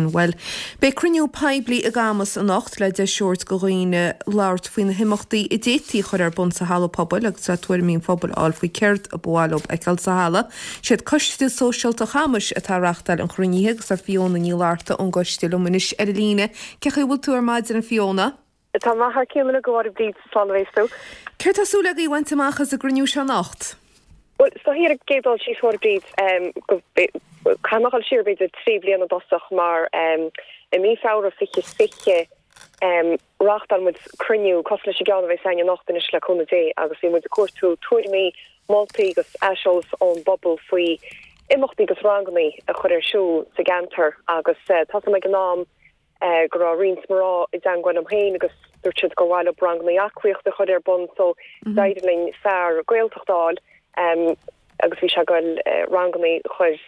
sin. Bhuel, beidh cruinniú poiblí i gCamus anocht le deis a thabhairt do dhaoine labhairt faoi na himeachtaí a d'fhéadfaí a chur ar bun sa halla pobail agus le tuairimí an phobail a fháil faoi céard a ba mhaith leo a fheiceáil sa halla. Siad Coiste Sóisialta Chamais atá ag reachtáil an chruinnithe agus tá Fiona Ní Fhlatharta ón gcoiste liom anois ar an líne. Cén chaoi a bhfuil tú ar maidin, a Fiona? Tá mé thar cionn uilig, a Mháire Bríd, slán a bhéas tú. Céard tá súil agaibh a bhaint amach as an gcruinniú seo anocht? Bhuel, is dóichí ar an gcéad dul síos, a Mháire Bríd, go, caithfidh mé a dhul siar b'fhéidir 3 bliana i dtosach mar i mí Feabhra 2020 reáchtáil muid cruinniú cosúil leis an gceann a bheas againn anocht anois le cúnamh Dé agus bhí muid ag cuartú tuairimí, moltaí agus aiseolas ón bpobal faoi imeachtaí agus rangannaí a chur ar siúl sa gceantar agus tá a fhios agam ag an am go raibh roinnt mná i dteangmháil liom féin agus dúirt siad gur mhaith leo rangannaí aclaíochta a chur ar bun so d'éirigh linn fear Gaeltachta a fháil agus bhí sé ag goil rangannaí a chur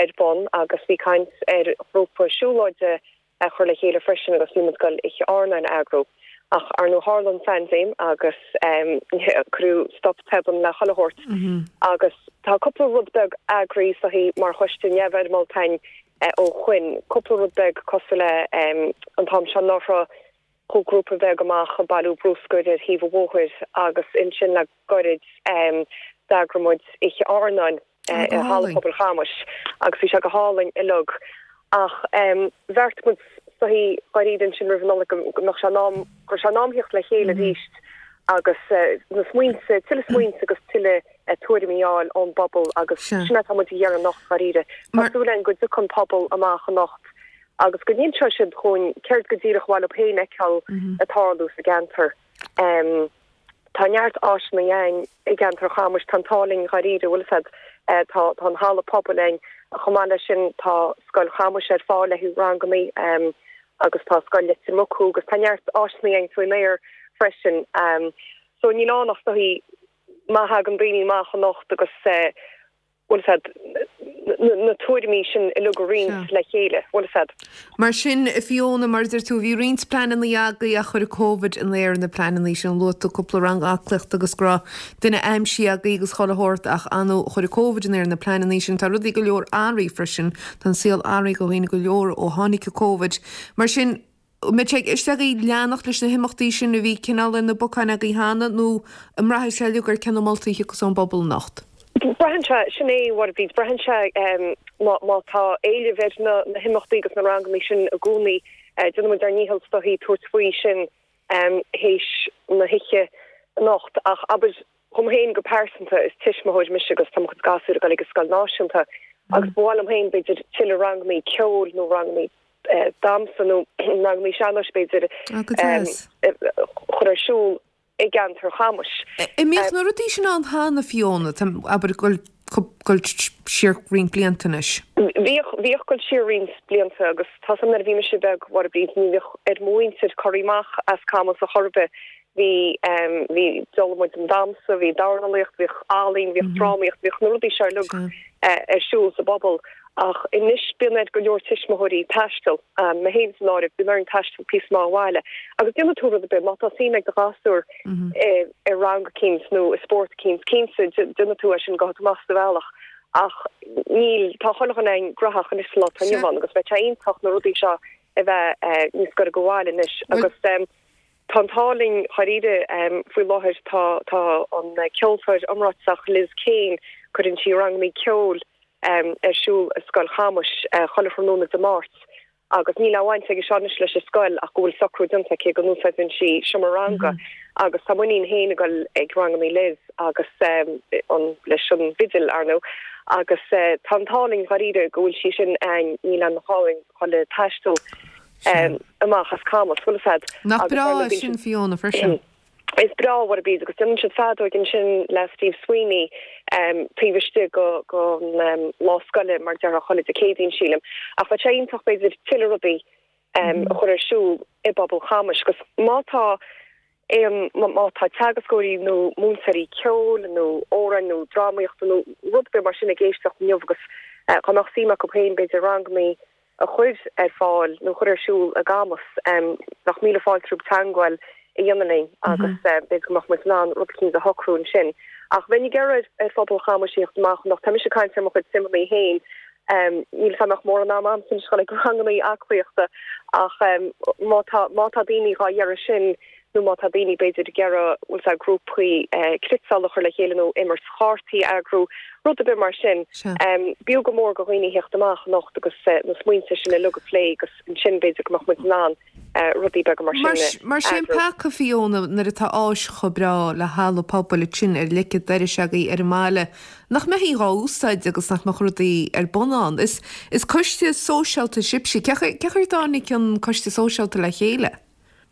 ar bun agus bhí caint ar ghrúpa siúlóide a chur le chéile freisin agus bhí muid ag goil oíche airneáin a eagrú. Ach ar ndóigh tharla an phaindéim agus cuireadh stop tobann le chuile shórt agus tá cúpla rud beag eagraithe is dóichí mar choiste neamhfhoirmeálta againn ó shoin, cúpla rud beag cosúil le an t-am seo anuraidh chuaigh grúpa beag amach ag bailiú brúscair ar thaobh an bhóthair agus ansin le goirid d'eagraigh muid oíche airneáin i Halla Pobail Chamais agus bhí sé go hálainn uilig. Ach bheartaigh muid is dóichí dháiríre ansin roimh an Nollaig go mbeadh sé in am, go raibh sé in am theacht le chéile arís agus na smaointe, tuilleadh smaointe agus tuilleadh tuairimí a fháil ón bpobal agus sin atá muid a iarraidh anocht dháiríre. Tá súil againn go dtiocfaidh an pobal amach anocht agus go n-inseoidh siad dhúinn céard go díreach ba mhaith leo féin a fheiceáil ag tarlú sa gceantar. Tá neart áiseanna againn i gceantar Chamais, tá an t-ádh linn dháiríre, bhfuil fhios a'd, tá tá an halla pobail againn, chomh maith leis sin tá Scoil Chamais ar fáil le haghaidh rangannaí agus tá Scoil Leitir Mucú agus tá neart áiseanna againn faoin aer freisin. So níl ann ach is dóichí má thagann daoine amach anocht agus bhfuil fhios a'd, na tuairimí sin uilig a roinnt le chéile, bhfuil fhios a'd. Mar sin, a Fiona, mar a deir tú, bhí roinnt pleananna agaibh ach chuir Covid in aer na pleananna sin. Luaigh tú cúpla rang aclaíochta agus go raibh duine aimsithe agaibh agus chuile shórt ach ar ndóigh chuir Covid in aer na pleananna sin. Tá rudaí go leor athraithe freisin. Tá an saol athraithe do dhaoine go leor ó tháinig Covid. Mar sin, An mbeidh sé i gceist agaibh leanacht leis na himeachtaí sin a bhí cineál ar na bacáin agaibh cheana nó an mbraithfidh sé uilig ar cé na moltaí a thiocfas ón bpobal anocht? Braitheann sé, sin é, a Mháire Bríd, braitheann sé má tá éileamh ar na himeachtaí agus na rangannaí sin i gcónaí, déanfaidh muid ár ndícheall is dóichí tabhairt faoi sin théis na hoíche anocht. Ach abair, dhom féin go pearsanta, is tuismitheoir mise agus tá mo chuid gasúir ag dul ag an scoil náisiúnta agus ba mhaith liom féin b'fhéidir tuilleadh rangannaí ceoil nó rangannaí damhsa nó rangannaí sean-nóis b'fhéidir a chur ar siúl i gceantar Chamais. An mbíodh na rudaí sin ann cheana, Fiona, abair ag dul siar roinnt blianta anois? Bhíodh, bhíodh ag dul siar roinnt blianta agus tá 's a'm nuair a bhí mise beag, a Mháire Bríd, ní bhíodh ar mo mhuintir corraí amach as Camus a chor ar bith. Bhí, bhí, d'fhoghlaim muid an damhsa, bhí dornálaíocht, bhíodh ealaín, bhíodh drámaíocht, bhíodh na rudaí seo uilig ar siúl sa bpobal. Ach anois bíonn ar go leor tuismitheoirí taisteal, mé féin san áireamh, bíonn orainn taisteal píosa maith ó bhaile. Agus déanfaidh tú rud ar bith, má tá suim ag do ghasúr i rang eicínt nó i spórt eicínt, cinnte déanfaidh tú é sin, gabhfaidh tú amach sa bhealach. Ach níl, tá chuile dhuine againn graitheach anois sa lá atá inniu ann agus bheadh sé iontach na rudaí seo a bheith níos gaire go bhaile anois. Agus tá an t-ádh linn dháiríre faoi láthair, tá tá an ceoltóir iomráiteach Liz Kane, cuireann sí rangannaí ceoil ar siúl i Scoil Chamais chuile thráthnóna Dé Máirt agus níl aon bhaint aige seo anois leis an scoil ach go bhfuil socrú déanta aici go n-úsáideann sí seomra ranga agus tá m'iníon féin ag dul ag rangannaí Liz agus an leis an bhfidil ar ndóigh agus tá an t-ádh linn dháiríre go bhfuil sí sin againn níl aon ghá againn dhul ag taisteal amach as Camus bhfuil fhios a'd. Nach breá é sin Fiona freisin. Is breá, a Mháire Bríd, agus déanann siad feadóig ansin le Steve Sweeney taobh istigh den lá scoile, mar a déarfá, chuile Dé Céadaoin, sílim. Ach bheadh sé iontach, b'fhéidir, tuilleadh rudaí a chur ar siúl i bpobal Chamais. Agus má tá aon, má tá teagascóirí nó múinteoirí ceoil nó amhráin nó drámaíochta nó rud ar bith mar sin ag éisteacht inniu agus dá mbeadh suim acu féin, b'fhéidir, rangannaí a chur ar fáil nó a chur ar siúl i gCamus. Bheadh míle fáilte rompu teagmháil a dhéanamh linn agus b'fhéidir go mbeadh muid in ann rud eicínt a shocrú ansin. Ach bheinn ag iarraidh ar phobal Chamais a theacht amach anocht. Tá mise ag caint ar mo chuid suimeanna féin. Níl 'fhios a'm an mbeadh mórán ama a'msa anois a dhul ag rangannaí aclaíochta ach má tá má tá daoine dhá iarraidh sin nó má tá daoine b'fhéidir ag iarraidh bhfuil 's a'd grúpaí cniotála a chur le chéile nó imirt chártaí a eagrú, rud ar bith mar sin. B'fhiú go mór go dhaoine theacht amach anocht agus na smaointe sin uilig a phlé agus ansin b'fhéidir go mbeadh muid in ann rudaí beaga mar sin a eagrú. Mar sin peaca, Fiona, nuair atá áis chomh breá le halla pobail ansin ar leic an dorais agaibh ar an mbaile, nach mbeifí dhá úsáid agus nach mbeadh rudaí ar bun ann. Is is coiste sóisialta sibhse. Cé chaoi ar dtáinig an coiste sóisialta le chéile?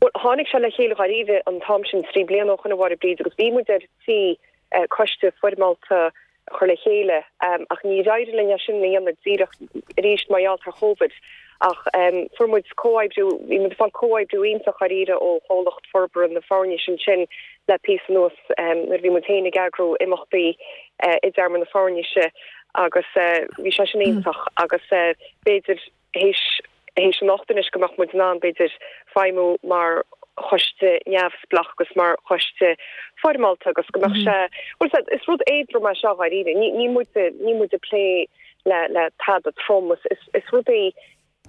Bhuel, tháinig sé le chéile dháiríre an t-am sin trí bliana ó shoin a Mháire Bríd agus bhí muid ar tí coiste foirmeálta a chur le chéile ach níor éirigh linn é sin a dhéanamh díreach arís mar gheall ar Chóvid. Ach fuair muid comhoibriú, bhí muid ag fáil comhoibriú iontach dháiríre ó Chomhlacht Forbartha na Foirnise ansin le píosa anuas nuair a bhí muid féin ag eagrú imeachtaí i dTearmann na Foirnise agus bhí sé sin iontach agus b'fhéidir théis théis anocht anois go mbeadh muid in ann, b'fhéidir, feidhmiú mar choiste neamhspleách agus mar choiste foirmeálta agus go mbeadh sé, bhuel, is rud éadrom é seo dháiríre. Ní, níl muid, níl muid ag plé le, le tada trom. Is, is, is rudaí,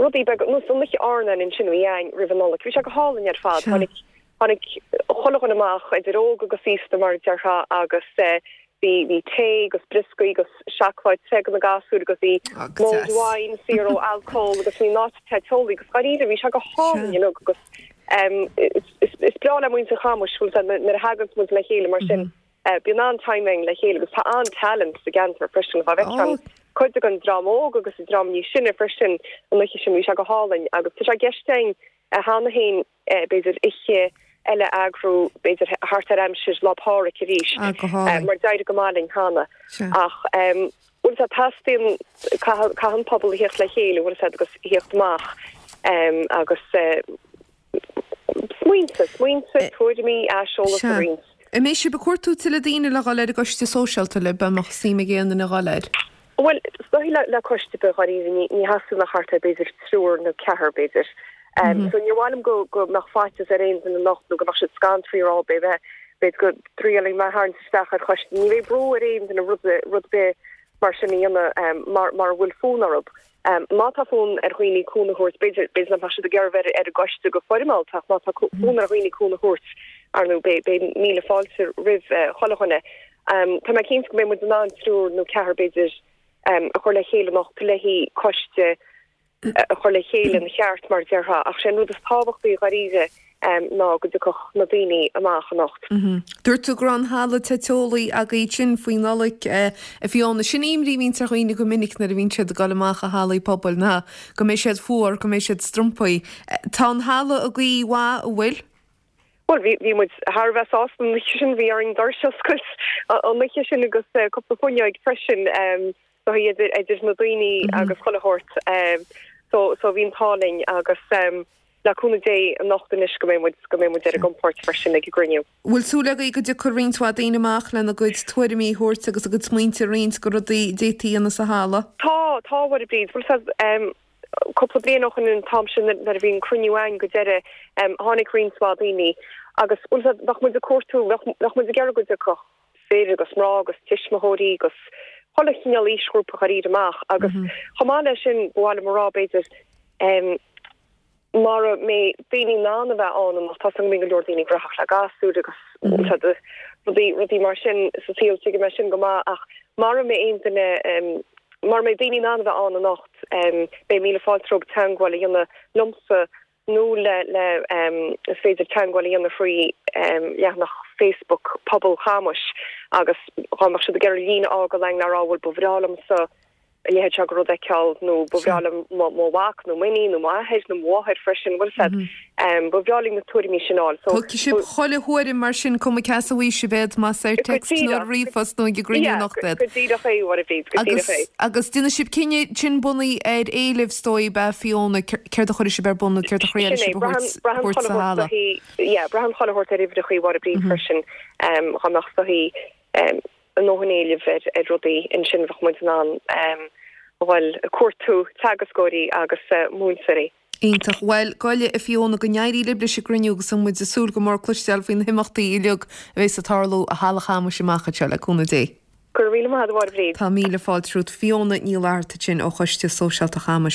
rudaí beaga, nós an oíche airneáin ansin a bhí againn roimh an Nollaig. Bhí sé go hálainn ar fad. Tháinig, tháinig chuile dhuine amach, idir óg agus aosta mar a déarfá agus eh, Bhí, bhí tae agus brioscaí agus seacláid te do na gasúir agus bhí mulled wine saor ó alcól agus bhí an áit te teolaí agus dháiríre bhí sé go hálainn uilig agus is, is, is breá le muintir Chamuis bhfuil 's a'd nuair a thaganns muid le chéile mar sin bíonn an-time againn le chéile agus tá an-talent sa gceantar freisin dá bhfeicfeá an cuid den dream óg agus an dream níos sine freisin an oíche sin bhí sé go hálainn agus tá sé i gceist againn cheana féin b'fhéidir oíche eile a eagrú, b'fhéidir thart ar aimsir Lá Pádraig arís, mar d'éirigh go maith linn cheana. Ach bhfuil 's a'd, teastaíonn, caithfidh an pobal a theacht le chéile, bhfuil 's a'd, agus theacht amach agus smaointe, smaointe, tuairimí, aiseolas a roinnt. An mbeidh sibh ag cuartú tuilleadh daoine le dhul ar an gcoiste sóisialta libh, an mbeadh suim ag aon duine dhul air? Bhuel, is dóigh le le coiste ar bith dháiríre ní ní theastaíonn ach thart ar b'fhéidir triúr nó ceathrar b'fhéidir. So níor mhaith liom go go mbeadh faitíos ar aon duine anocht nó go mbeadh siad scanraithe a rá b'fhéidir b'fhéidir go dtriailfidh mé tharraingt isteach ar choiste. Ní bheidh brú ar aon duine rud rud ar bith mar sin a dhéanamh mar mura bhfuil fonn orthu. Má tá fonn ar dhaoine cúnamh a thabhairt, b'fhéidir b'fhéidir nach mbeadh siad ag iarraidh bheith ar an gcoiste go foirmeálta ach má tá fonn ar dhaoine cúnamh a thabhairt, ar ndóigh, beidh beidh míle fáilte roimh chuile dhuine. Tá mé cinnte go mbeidh muid in ann triúr nó ceathrar b'fhéidir a chur le chéile anocht le haghaidh coiste a chur le chéile ina cheart mar a déarfá ach sé an rud is tábhachtaí dháiríre ná go dtiocfadh na daoine amach anocht. Dúirt tú go raibh an halla te teolaí agaibh ansin faoi Nollaig a Fiona. Sin imní a bhíonns ar dhaoine go minic nuair a bhíonn siad ag dul amach i hallaí pobail ná go mbeidh siad fuar, go mbeidh siad strompaí. Tá an halla i gcaoi mhaith, an bhfuil? Bhuel, bhí, bhí muid thar a bheith sásta an oíche sin, bhí orainn doirse a oscailt an oíche sin agus cúpla fuinneoig freisin so idir, idir na daoine agus chuile shórt. So, so bhí an t-ádh linn agus le cúnamh Dé anocht anois go mbeidh muid, go mbeidh muid ar ár gcompord freisin ag an gcruinniú. Bhfuil súil agaibh go dtiocfaidh roinnt mhaith daoine amach lena gcuid tuairimí a thabhairt agus a gcuid smaointe a roinnt go rudaí a d'fhéadfaí a dhéanamh sa halla? Tá, tá a Mháire Bríd. Bhfuil 's a'd, Cúpla bliain ó shoin an t-am sin nuair a bhí an cruinniú againn go deireadh tháinig roinnt mhaith daoine agus bhfuil 's a'd bheadh muid ag cuartú, bheadh muid ag iarraidh go dtiocfadh fir agus mná agus tuismitheoirí agus chuile chineál aoisghrúpa dháiríre amach agus chomh maith leis sin ba mhaith liom a rá b'fhéidir mara mbeidh daoine in ann a bheith ann anocht, tá 's agam go mbíonn go leor daoine gnóthach le gasúir agus rudaí, rudaí mar sin sa saol, tuigim é sin go maith ach mara mbeidh aon duine, mara mbeidh daoine in ann a bheith ann anocht, beidh míle fáilte rompu teagmháil a dhéanamh liomsa nó le, le, is féidir teagmháil a dhéanamh thrí leathanach Facebook Pobal Chamuis agus dhá mbeadh siad ag iarraidh líne a fhágáil againn le rá bhuel ba bhreá liomsa a leithéid seo de rud a fheiceáil nó ba bhreá liom mo mhac nó m'iníon nó m'athair nó mo mháthair freisin, bhfuil 's a'd. Ba bhreá linn na tuairimí sin a fháil. So. Tógfaidh sibh chuile thuairim mar sin, cuma cé as a bhfaighidh sibh iad, más ar text nó ar ríomhphost nó ag an gcruinniú anocht iad. Go díreach é, a Mháire Bhríd, go díreach é. Agus déanfaidh sibh cinneadh sin bunaithe ar éileamh, is dóigh, ab ea, Fiona, céard a chuirfidh sibh ar bun nó céard a thriailfidh sibh a thabhairt sa halla. Yeah, braitheann chuile shórt ar uimhreachaí, a Mháire Bríd, freisin, dhá mbeadh is dóichí. a ndóthain éilimh ar rudaí ansin bheadh muid in ann a dhul ag cuartú teagascóirí agus múinteoirí. Iontach. Bhuel, go a Fiona, go n-éirí libh leis an gcruinniú agus tá muid ag súil go mór cloisteáil faoi na himeachtaí uilig a bheas ag tarlú i Halla Chamuis amach anseo, le cúnamh Dé. Go raibh míle maith agat a Mháire Bríd. Tá míle fáilte romhat. Fiona Ní Fhlatharta ansin ó Choiste Sóisialta Chamais.